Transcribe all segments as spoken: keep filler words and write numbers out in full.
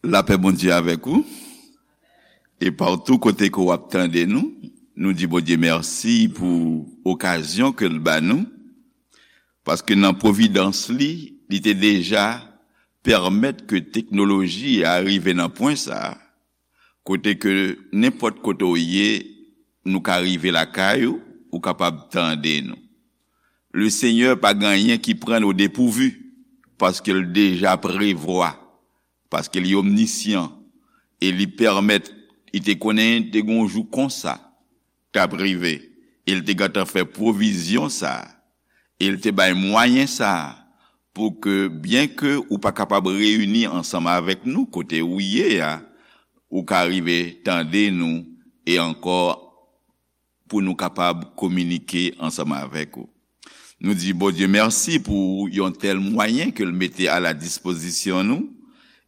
Lapè Bondye avèk ou. E patou kote ke w ap tande nou, nou di Bondye mèsi pou okazyon ke l ba nou, paske nan pwovidans li, li te deja pèmèt ke teknoloji a rive nan pwen sa a, kote ke nenpòt kote w ye, nou ka rive lakay ou, ou kapab tande nou. Le Senyè pa gen anyen ki pran n o depouvi, paske l deja prevwa, paske li omnisyan, e li pèmèt, li te konnen te gen yon jou konsa k ap rive, e l te gentan fè pwovizyon sa a, e l te bay mwayen sa a, pou ke, byenke ou pa kapab reyini ansanm avèk nou kote ou ye a, ou ka rive tande nou, e ankò pou nou kapab kominike ansanm avèk ou. Nou di Bondye mèsi pou yon tèl mwayen ke l mete a la dispozisyon nou,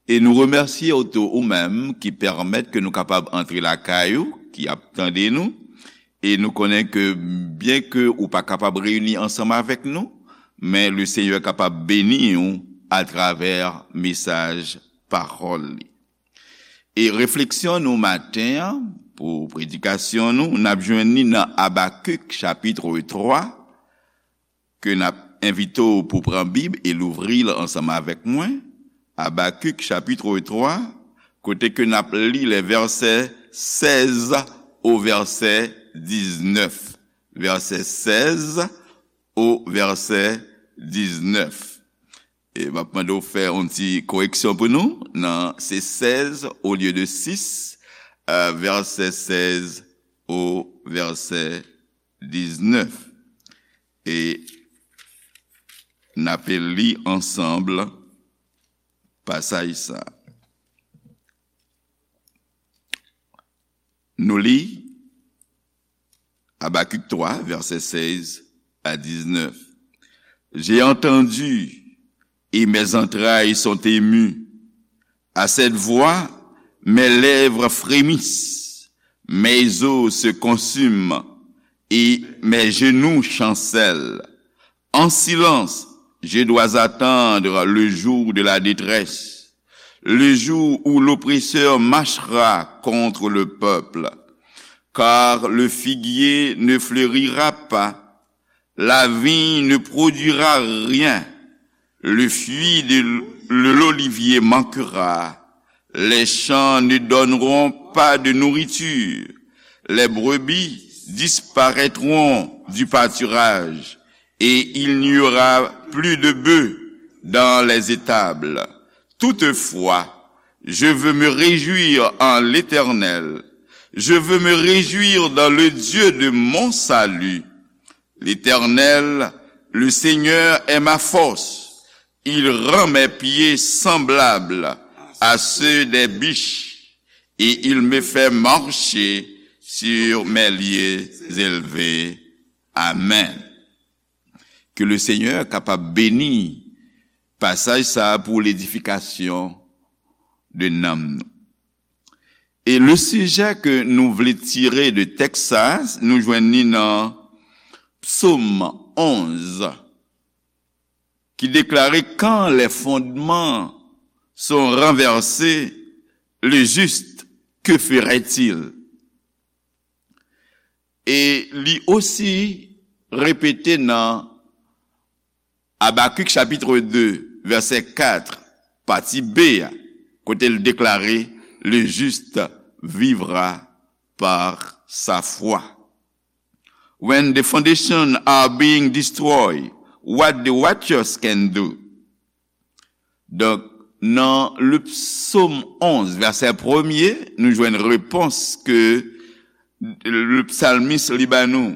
e nou remèsye w tou ou menm ki pèmèt ke nou kapab antre lakay ou, ki ap tande nou, e nou konnen ke byenke ou pa kapab reyini ansanm avèk nou, men le Senyè kapab beni w atravè mesaj pawòl li. E refleksyon nou maten an, pou predikasyon nou, n ap jwenn li nan Abakik chapit twa, ke n ap envite w pou pran Bib e louvri l ansanm avèk mwen. Abakik chapit twa, kote ke n ap li lè vèsè sèz o vèsè diznèf. Vèsè sèz o vèsè diznèf. E m ap mande w fè yon ti koreksyon pou nou. Nan, se sèz olye de sis, euh, vèsè sèz o vèsè diznèf. E n ape li ansanm pasaj sa. Nou li Abakik twa, vèsè sèz a diznèf. J'ai entendu et mes entrailles sont émues. À cette voix, mes lèvres frémissent, mes os se consument et mes genoux chancellent. En silence, je dois attendre le jour de la détresse, le jour où l'oppresseur marchera contre le peuple. Car le figuier ne fleurira pas, la vigne ne produira rien, le feuillu de l-, de l'olivier manquera, les champs ne donneront pas de nourriture, les brebis disparaîtront du pâturage, et il n'y aura plus de bœufs dans les étables. Toutefois, je veux me réjouir en l'Éternel. Je veux me réjouir dans le Dieu de mon salut. L'Éternel, le Seigneur, est ma force. Il rend mes pieds semblables à ceux des biches, et il me fait marcher sur mes lieux élevés. Amen. Ke le Senyè kapab beni pasaj sa a pou ledifikasyon de nanm nou. E le sijè ke nou vle tire de tèks sa a, nou jwenn li nan Psaume onze, qui déclarait: Quand les fondements sont renversés, le juste, que ferait-il? E li osi repete nan Abakik chapit de, vèsè kat, pati B a, kote l deklare: Le juste vivra par sa foi. When the foundations are being destroyed, what the righteous can do? Donk, nan le Psaume onze, vèsè premye, nou jwenn repons ke le psalmiste li ba nou.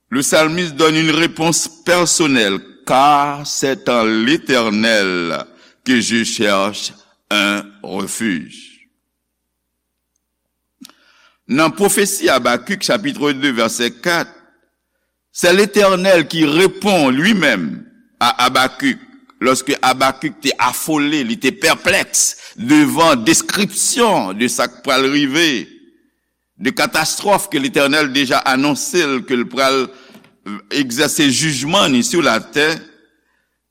Le psalmiste donne une réponse personnelle, car c'est en l'Éternel que je cherche un refuge. Nan pwofesi Abakik, chapit de, vèsè kat, c'est l'Éternel qui répond lui-même à Habacuc, lorsque Habacuc te afole, li te pèplèks devan deskripsyon de sa k pral rive, de katastwòf ke Letènèl deja anonse l, ke l pral, euh, egzèse jijman ni sou latè.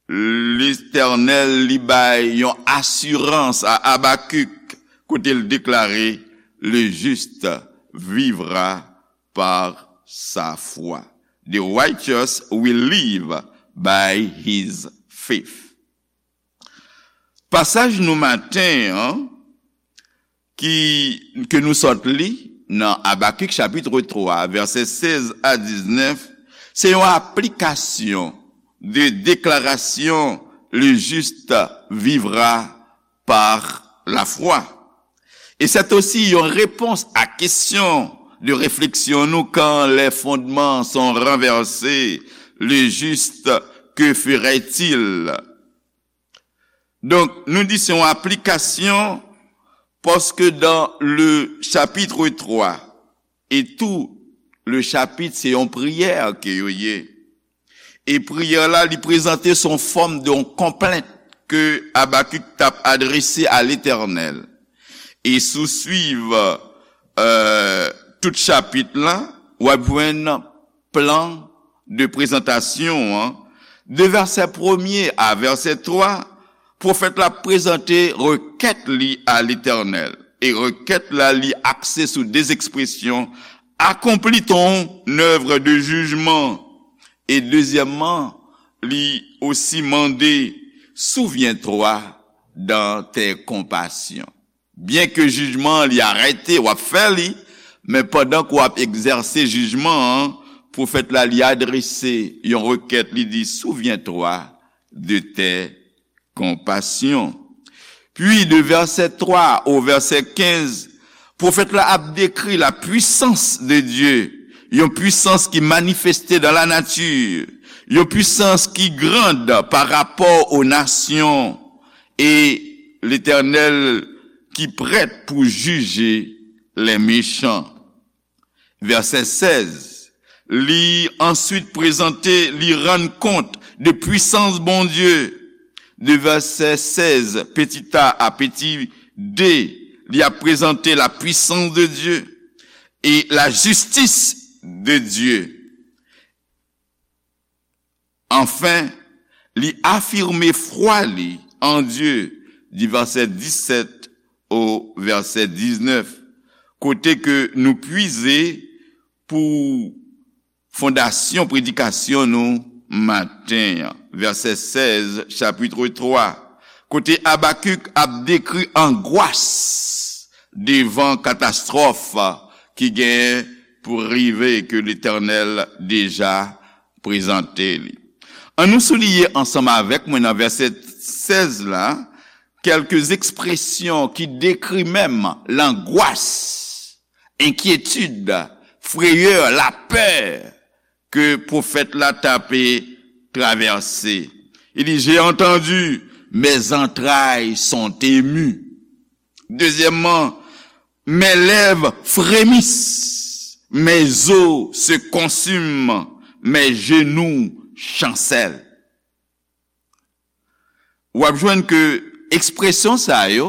Letènèl li bay yon asirans a Abakik kote l deklare, le juste vivra par sa foi. The righteous will live by his faith. Pasaj nou maten an ki, ke nou sot li nan Abakik chapit twa, vèsè sèz a diznèf, se yon aplikasyon de deklarasyon le juste vivra par la foi. Et c'est aussi une réponse à question de réflexion nous quand les fondements sont renversés, le juste, que ferait-il? Donk, nou di se yon aplikasyon, paske dans le chapitre trois et tout le chapitre, se yon priyè ke yo ye. E priyè la, li prezante son fòm de yon konplent ke Abakik t ap adrese a Letènèl. E si w swiv, euh, tout chapit la, w ap jwenn plan de prezantasyon an, de vèsè premye a vèsè twa, pwofèt la prezante rekèt li a Letènèl. E rekèt la, li akse sou de ekspresyon, accomplis ton œuvre de jugement. E dezyèmman, li osi mande, souviens-toi dans tes compassions. Byen ke jijman an li arete, w ap fè li, men pandan ke w ap egzèse jijman an, pwofèt la li adrese yon rekèt, li di, souviens-toi de tes compassions. Puis, de verset trois au verset quinze, pwofèt la ap dekri la puissance de Dieu, yon pwisans ki manifeste dans la nature, yon pwisans ki grand par rapport aux nations, et Letènèl ki prèt pou jije les méchants. Vèsè sèz, li answit prezante, li rann kont de pwisans Bondye. De vèsè sèz, petit a a petit d, li ap prezante la puissance de Dieu et la justice de Dieu. Anfen, li afime fwa li an Dye, di vèsè disèt o vèsè diznèf, kote ke nou pwize pou fondasyon predikasyon nou maten an, vèsè sèz, chapit twa, kote Abakik ap dekri angwas devan katastwòf ki gen pou rive, ke Letènèl deja prezante li. Ann nou souliye ansanm avèk mwen nan vèsè sèz la, kèlke ekspresyon ki dekri menm langwas, enkyetid, freyè, lapè ke pwofèt la t ape travèse. Li di, j'ai entendu, mes entrailles sont émues. Dezyèmman, mes lèvres frémissent, mes os se consument, mes genoux chancellent. W ap jwenn ke ekspresyon sa yo,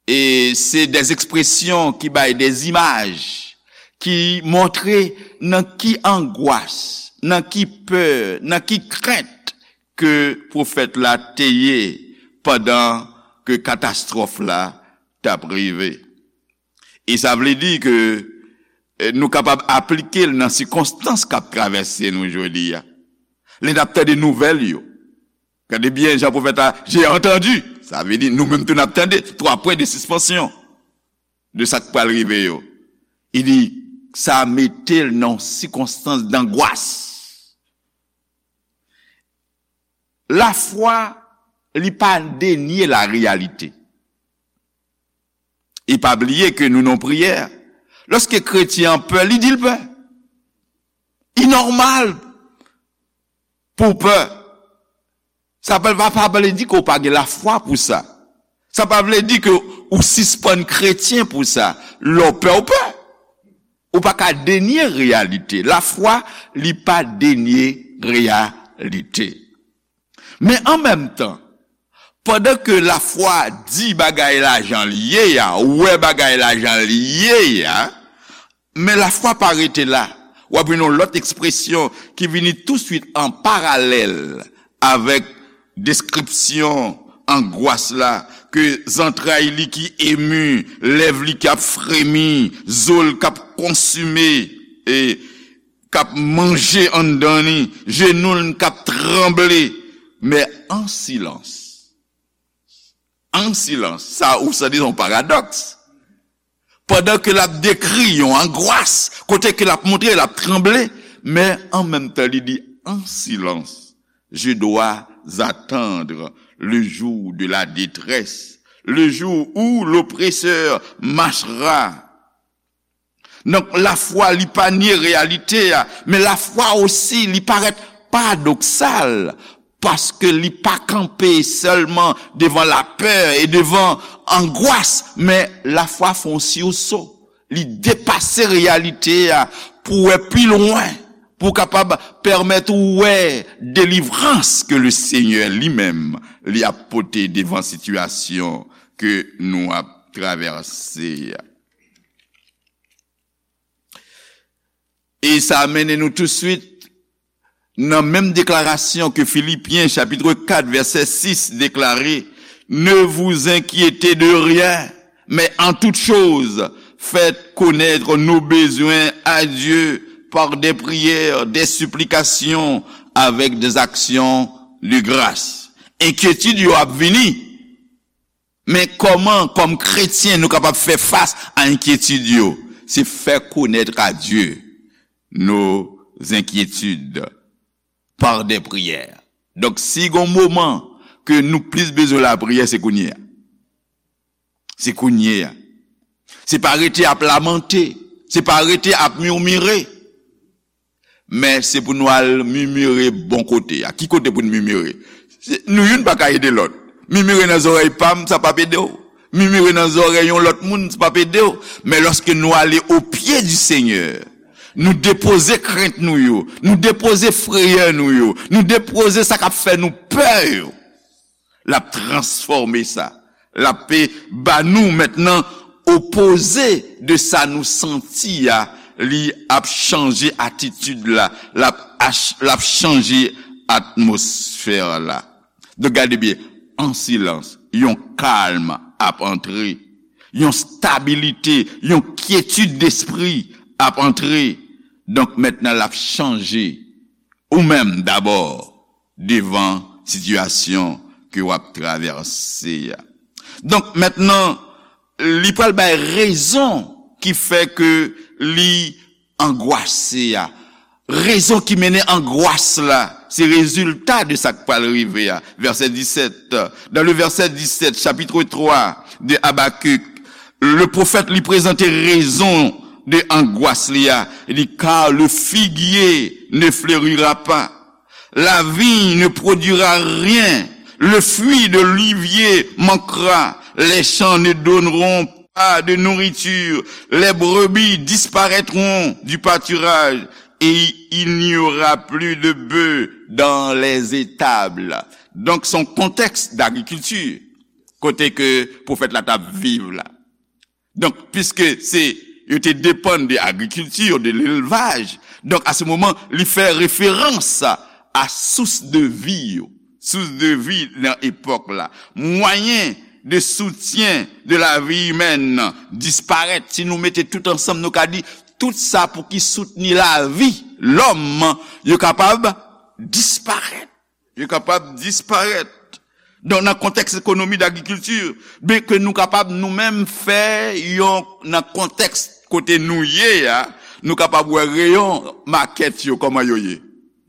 e se de ekspresyon ki bay de imaj, ki montre nan ki angwas, nan ki pè, nan ki krent ke pwofèt la te ye pandan ke katastwòf la t ap rive. E sa vle di ke, eh, nou kapab aplike l nan sikonstans k ap travèse nou jodi a. Lè n ap tande nouvèl yo, gade byen jan pwofèt la, j'ai entendu. Sa vle di, nou menm tou n ap tande, twa pwen de sispansyon de sa k pral rive yo. Li di, sa mete l nan yon sikonstans dangwas. Lafwa, li pa denye lareyalite. E pa bliye ke nou nan priyè. Lòske kretyen an pè, li di l pè. Li nòmal pou w pè. Sa pa, pa, pa vle di ke w pa gen lafwa pou sa. Sa pa vle di ke ou sispann kretyen pou sa. Lè w pè, w pè. Ou pa ka denye reyalite. Lafwa, li pa denye reyalite. Men an menm tan, pandan ke lafwa di bagay la jan l ye a, wè bagay la jan l ye a, men lafwa pa rete la. W ap jwenn yon lòt ekspresyon ki vini touswit an paralèl avèk deskripsyon angwas la, ke zantray li ki emi, lèv li k ap fremi, zo l k ap konsime, e k ap manje anndan li, jenou l k ap tranble, men an silans. An silans. Sa ou santi se yon paradòks. Pandan ke l ap dekri yon angwas, kote ke l ap montre l ap tranble, men an menm tan li di, en silence, je dois attendre le jour de la détresse, le jour où l'oppresseur marchera. Donk, lafwa li pa nye reyalite a, men lafwa osi li parèt paradoksal, paske li pa kanpe sèlman devan lapè e devan angwas, men lafwa fè yon siwso. Li depase reyalite a pou wè pi lwen, pou kapab pèmèt ou wè delivrans ke le Senyè li menm li ap pote devan sitiyasyon ke nou ap travèse a. E sa mennen nou touswit nan menm deklarasyon ke Filipyen chapit kat vèsè sis deklare, ne vous inquiétez de rien, mais en toute chose, faites connaître nos besoins à Dieu par des prières, des supplications, avec des actions de grâce. Enkyetid yo ap vini. Men kòman, kòm kretyen, nou kapab fè fas a enkyetid yo? Se fè konèt a Dye nos inquiétudes par des prières. Donk, si gon moman ke nou plis bezwen lapriyè, se kounye a. Se kounye a. Se pa rete ap lamante. Se pa rete ap mimire. Men se pou nou al mimire bon kote a. Ki kote pou n mimire? Se, nou youn pa ka ede lòt. Mimire nan zòrèy pa m, sa p ap ede w. Mimire nan zòrèy yon lòt moun, sa p ap ede w. Men lòske nou ale o pye di Senyè, nou depoze krent nou yo, nou depoze frayè nou yo, nou depoze sa k ap fè nou pè yo, l ap transfòme sa. L ap pe ba nou mentnan opoze de sa nou santi a, li ap chanje atitid la, l ap ach-, l ap chanje atmosfè la. Donk, gade byen, an silans, yon kalm ap antre, yon stabilite, yon kyetid despri ap antre. Donk, mentnan, l ap chanje ou menm dabò devan sitiyasyon ke w ap travèse a. Donk, mentnan, li pral bay rezon ki fè ke li angwase a. Rezon ki mennen angwas la, se rezilta de sa k pral rive a. Vèsè disèt, dans le verset dix-sept, chapitre trois de Habacuc, le pwofèt li prezante rezon de angwas li a. Li di, car le figuier ne fleurira pas, la vigne ne produira rien, le fruit de l'olivier manquera, les champs ne donneront pas de nourriture, les brebis disparaîtront du pâturage et il n'y aura plus de bœufs dans les étables. Donk, se yon kontèks dagrikilti kote ke pwofèt la t ap viv la. Donk, piske se, yo te depann de agrikilti, de lelvaj, donk, a se moman, li fè referans a sous de vi yo. Sous de vi nan epòk la. Mwayen de soutyen de la vi imèn disparèt. Si nou mete tout ansanm, nou ka di, tout sa pou ki soutni lavi lòm, yo kapab disparèt. Yo kapab disparèt. Donk, nan kontèks ekonomi dagrikilti, byen ke nou kapab nou menm fè yon, nan kontèks kote nou ye a, nou kapab wè reyon makèt yo, kòman yo ye.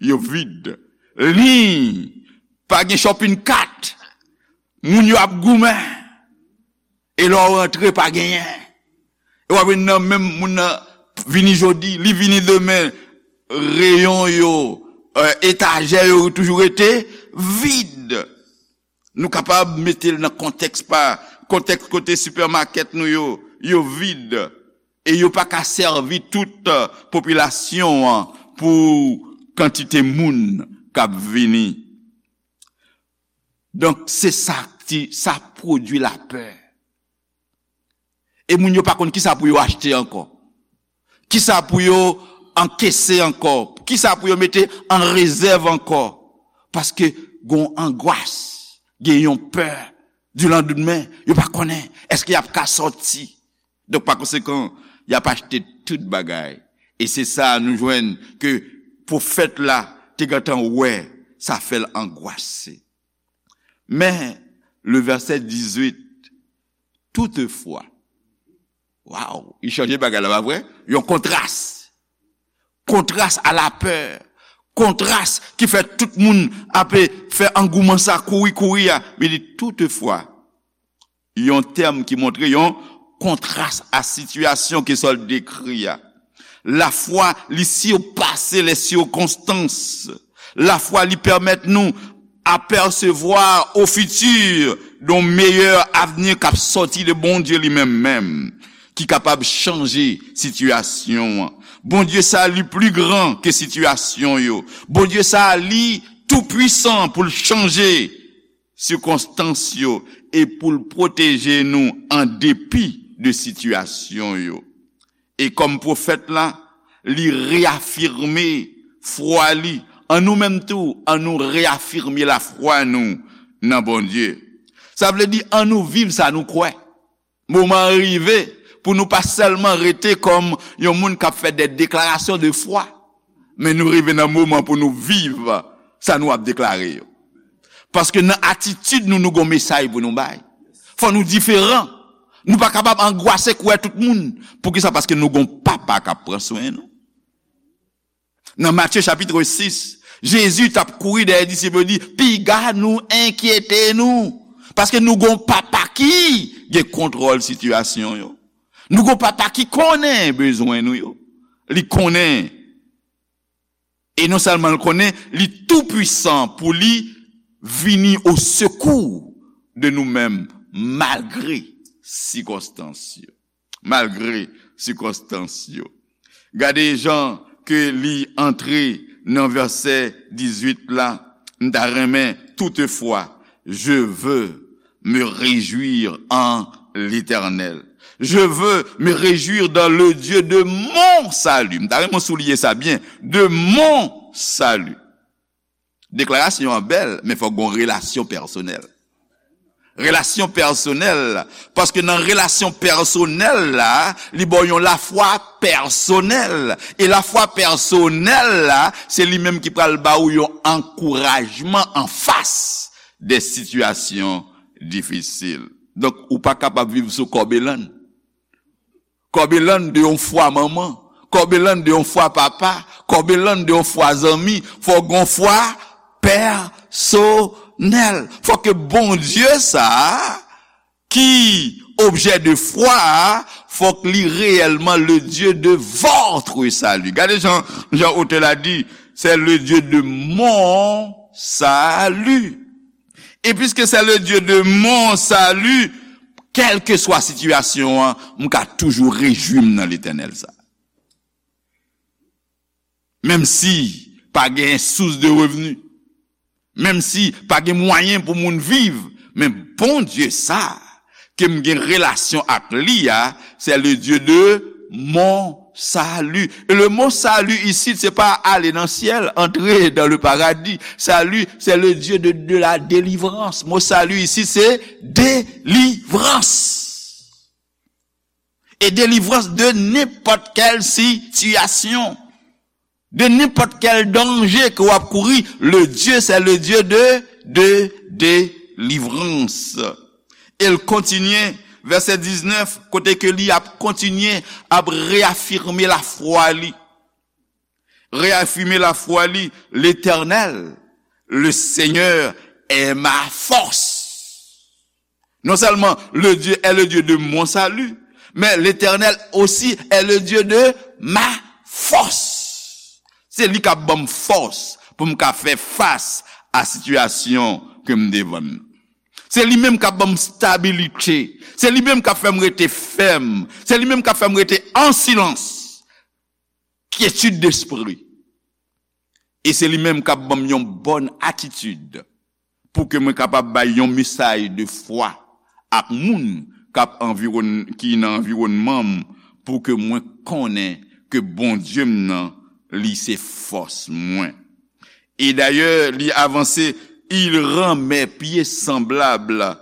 Yo vid. Liy, pa gen shopping cart. Moun yo ap goumen. E lè w rantre, pa genyen. E w ap jwenn nan menm moun nan vini jodi, li vini demen, reyon yo, eh, etajè yo toujou rete vid. Nou kapab mete l nan kontèks pa, kontèks kote sipèmakèt nou yo, yo vid. E yo pa ka sèvi tout, eh, popilasyon an pou kantite moun k ap vini. Donk, se sa ki, sa pwodui lapè. E moun yo pa konn kisa pou yo achte ankò. Kisa pou yo ankese ankò. Kisa pou yo mete an rezèv ankò. Paske gon angwas, gen yon pè di landmen, yo pa konnen èske y ap ka sòti. Donk, pa konsekan, y ap achte tout bagay. E se sa nou jwenn ke pwofèt la te gentan wè, sa fè l angwase. Men, le verset dix-huit, toutefwa, waw, li chanje bagay la, pa vre? Yon kontras. Kontras a lapè. Kontras ki fè tout moun ape fè angouman sa, kouri, kouri a. Li di, toutefwa, yon tèm ki montre yon kontras a sitiyasyon ke sa l dekri a. Lafwa, li sipase les circonstances. Lafwa, li pèmèt nou apercevoir au futur d'un meilleur avenir k ap sòti de Bondye li menm menm, ki kapab chanje sitiyasyon an. Bondye sa, li pli gran ke sitiyasyon yo. Bondye sa, li toupwisan pou l chanje sikonstans yo e pou l pwoteje nou an depi de sitiyasyon yo. E kòm pwofèt la, li reyafime fwa li. An nou menm tou, an nou reyafime lafwa nou nan Bondye. Sa vle di, an nou viv sa nou kwè. Moman an rive pou nou pa sèlman rete kòm yon moun k ap fè de deklarasyon de fwa, men nou rive nan moman pou nou viv sa nou ap deklare yo. Paske nan atitid nou, nou gon mesaj pou nou bay. Fò nou diferan. Nou pa kapab angwase koulè tout moun. Poukisa? Paske nou gon papa k ap pran swen nou. Nan Matye chapit sis, Jezi t ap kouri dèyè disip yo, di, piga nou enkyete nou, paske nou gon papa ki gen kontwòl sitiyasyon yo. Nou gon papa ki konnen bezwen nou yo. Li konnen. E non sèlman l konnen, li toupwisan pou li vini o sekou de nou menm, malgre sikonstans yo. Malgre sikonstans yo. Gade jan ke li antre nan vèsè dizuit la, m ta renmen, toutefois, je veux me réjouir en l'Éternel. Je veux me réjouir dans le Dieu de mon salut. M ta renmen souliye sa byen, de mon salut. Deklarasyon an bèl, men fòk gon relasyon pèsonèl. Relasyon pèsonèl, paske nan relasyon pèsonèl la, li ba w yon lafwa pèsonèl. E lafwa pèsonèl la, se li menm ki pral ba w yon ankourajman anfas de sitiyasyon difisil. Donk, ou pa kapab viv sou kòbelann. Kòbelann de yon fwa manman, kòbelann de yon fwa papa, kòbelann de yon fwa zanmi, fò gon fwa pèsonèl. Fò ke Bondye sa a, ki objè de fwa a, fòk li reyèlman le Dieu de votre salut. Gade jan, jan otè la di, c'est le Dieu de mon salut. Et puisque c'est le Dieu de mon salut, kèlkeswa sitiyasyon an, m ka toujou rejwi m nan Letènèl sa. Menm si pa gen sous de revni, menm si pa gen mwayen pou moun viv, men Bondye sa ke m gen relasyon ak li a, c'est le Dieu de mon salut. Et le mot salut ici, se pa ale nan syèl, entrer dans le paradis. Salut, c'est le Dieu de, de la délivrance. Mo salut ici, se delivrans. E delivrans de nenpòt kèl sitiyasyon, de nenpòt kèl danje ke w ap kouri, le Dieu, c'est le Dieu de, de délivrance. E l kontinye, vèsè diznèf, kote ke li ap kontinye, ap reyafime lafwa li. Reyafime lafwa li, Letènèl, le Seigneur est ma force. Non seulement le Dieu est le Dieu de mon salut, mais l'Éternel aussi est le Dieu de ma force. Se li k ap ban m fòs pou m ka fè fas a sitiyasyon ke m devan nan. Se li menm k ap ban m stabilite. Se li menm k ap fè m rete fèm. Se li menm k ap fè m rete an silans. Kyetid despri. E se li menm k ap ban m yon bòn atitid pou ke mwen kapab bay yon mesaj de fwa ak moun k ap anviwòn-, ki nan anviwònman m, pou ke mwen konnen ke Bondye m nan, li se fòs mwen. E dayè, li avanse, Il rend mes pieds semblables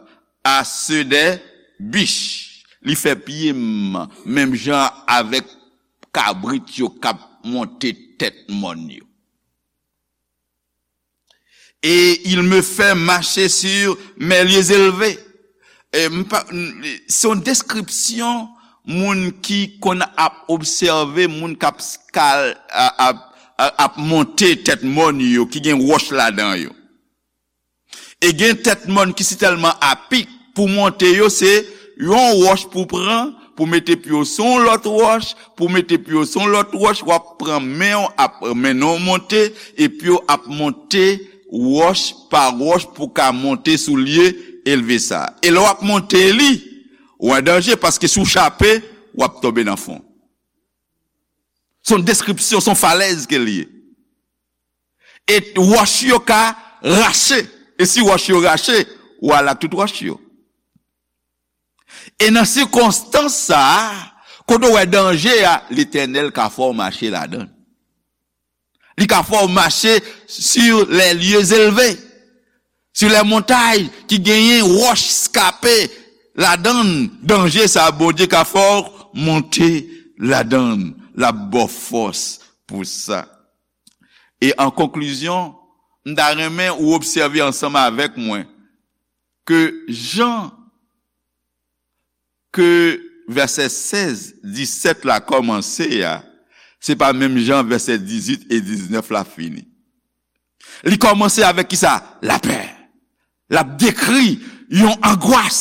à ceux des biches. Li fè pye m menm jan avèk kabrit yo k ap monte tèt mòn yo. Et il me fait marcher sur mes lieux élevés. E m pa, m, se yon deskripsyon moun ki konn ap obsève moun k ap skal, a, ap, a, ap monte tèt mòn yo, ki gen wòch ladan yo. E gen tèt mòn ki sitèlman apik pou monte yo, se yon wòch pou pran, pou mete pye w sou yon lòt wòch, pou mete pye w sou yon lòt wòch, w ap pran men w, ap mennen w monte, e pye w ap monte wòch pa wòch pou ka monte sou lye elve sa. E lè w ap monte li, ou an danje, paske si w chape, w ap tonbe nan fon. Se yon deskripsyon, se yon falèz ke l ye. E wòch yo ka rache. E si wòch yo rache, w al ak tout wòch yo. E nan sikonstans sa a, kote w wè danje a, Letènèl ka fè w mache ladan l. Li ka fè w mache sur les lieux élevés, sur les montagnes ki genyen wòch eskape ladan l. Danje sa a, Bondye ka fè w monte ladan l. L ap ba w fòs pou sa. E an konklizyon, m ta renmen ou obsève ansanm avèk mwen ke jan ke vèsè sèz, disèt la kòmanse a, se pa menm jan vèsè dizuit e diznèf la fini. Li kòmanse avèk kisa? Lapè. L ap dekri yon angwas.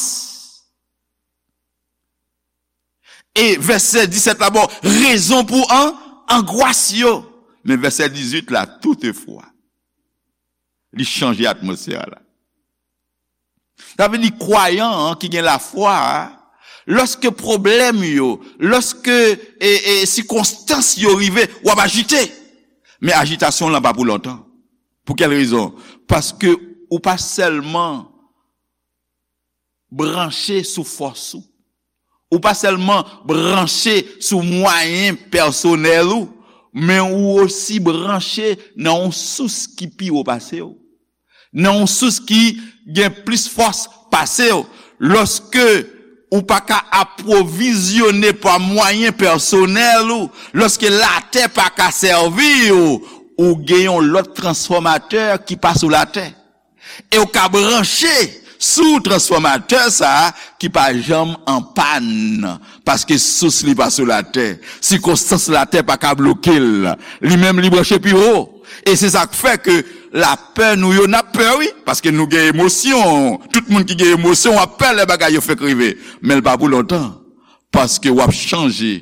E vèsè disèt la ba w rezon pou an, angwas yo. Men vèsè dizuit la, toutefwa, li chanje atmosfè a la. Sa vle di kwayan an ki gen lafwa a, lòske pwoblèm yo, lòske, e, e, sikonstans yo rive, w ap ajite. Men ajitasyon w lan pa pou lontan. Pou kèl rezon? Paske ou pa sèlman branche sou fòs ou. Ou pa sèlman branche sou mwayen pèsonèl ou, men ou osi branche nan yon sous ki pi wo pase w, nan yon sous ki gen plis fòs pase w. Lòske ou pa ka apwovizyone pa mwayen pèsonèl ou, lòske latè pa ka sèvi w, ou gen yon lòt transfòmatè ki pa sou latè. E w ka branche sou transfòmatè sa a ki pa janm an pàn, paske sous li pa sou latè. Sikonstans latè pa ka bloke l. Li menm, li branche pi wo. E se sa k fè ke lapè nou yo, n ap pè, wi, paske nou gen emosyon. Tout moun ki gen emosyon, w ap pè lè bagay yo fèk rive. Men l pa pou lontan, paske w ap chanje,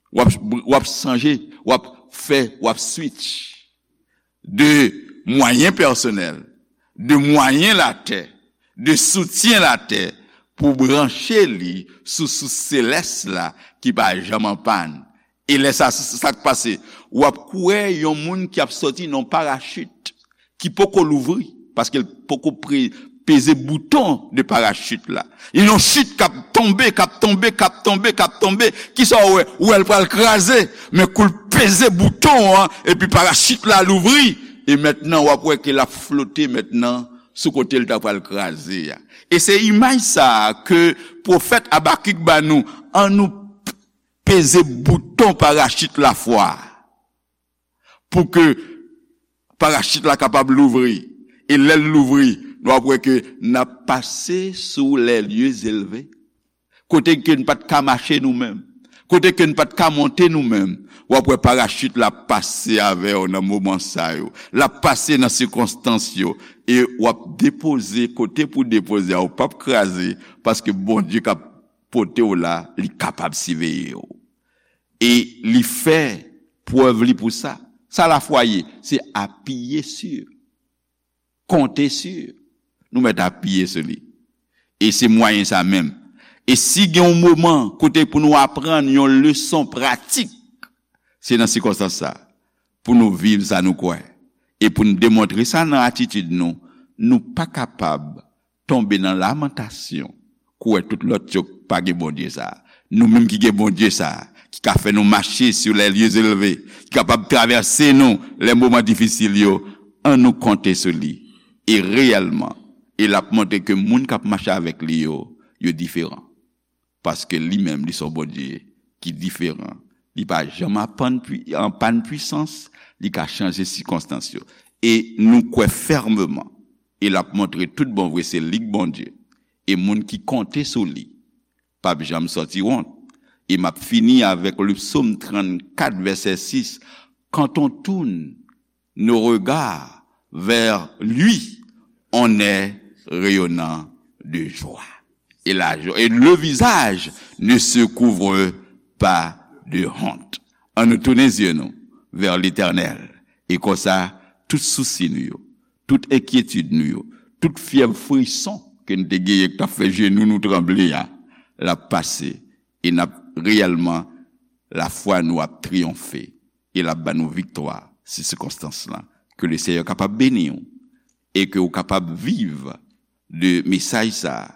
w ap, w ap chanje, w ap fè, w ap switch de mwayen pèsonèl, de mwayen latè, de soutyen latè pou branche li sou sous selès la ki pa janm an pàn. E lè sa, sa k pase? W ap kwè yon moun ki ap sòti nan yon parachit ki poko louvri, paske l poko pre-, peze bouton de parachit la. Li yon chit k ap tonbe, k ap tonbe, k ap tonbe, k ap tonbe. Kisa w wè? Ou wè l pral kraze, men kou l peze bouton an, epi parachit la louvri, e mentnan w ap wè ke l ap flote mentnan sou kote l ta pral kraze a. E se imaj sa a ke pwofèt Abakik ba nou, ann nou peze bouton parachit lafwa a, pou ke parachit la kapab louvri. E lè l louvri, nou ap wè ke n ap pase sou les lieux élevés, kote ke n pa t ka mache nou menm, kote ke n pa t ka monte nou menm. W ap wè parachit la ap pase avè w nan moman sa yo. L ap pase nan sikonstans yo. E w ap depoze kote pou depoze a, ou p ap kraze, paske Bondye k ap pote w la, li kapab siveye w. E li fè prèv li pou sa. Sa lafwa ye? Se apiye sur, konte sur. Nou mèt apiye sou li. E se mwayen sa menm. E si gen yon moman kote pou nou aprann yon leson pratik, se nan sikonstans sa, pou nou viv sa nou kwè. E pou n demontre sa nan atitid nou, nou pa kapab tonbe nan lamantasyon, kou wè tout lòt yo pa gen Bondye sa a. Nou menm ki gen Bondye sa a, ki ka fè nou mache sur les lieux élevés, ki kapab travèse nou lè moman difisil yo, ann nou konte sou li. e reyèlman, e l ap montre ke moun k ap mache avèk li yo, yo diferan. Paske li menm, li se yon Bondye ki diferan. Li pa janm an pàn pwisans, li ka chanje sikonstans yo. E nou kwè fèmeman, e l ap montre tout bon vre se li k Bondye. E moun ki konte sou li, p ap janm sòti wont. E m ap fini avèk le psaume trannkat, vèsè sis. Quand on tourne nos regards vers lui, on est rayonnant de joie. Et, la, et le visage ne se couvre pas de honte. An nou tounen zye nou vè Letènèl. E konsa, tout sousi nou yo, tout enkyetid nou yo, tout fyèv frison ke n te genyen k t ap fè jenou nou tranble a, l ap pase. E n ap reyèlman, lafwa nou ap triyonfe. E l ap ba nou viktwa sou sikonstans lan. Ke le Senyè kapab beni w e ke w kapab viv de mesaj sa a,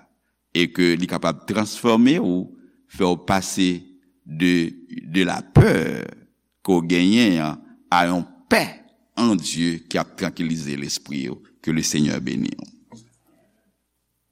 e ke li kapab transfòme w, fè w pase de, de la pè ke w genyen an a yon pè an Dye ki ap trankilize lespri w. Ke le Senyè beni w.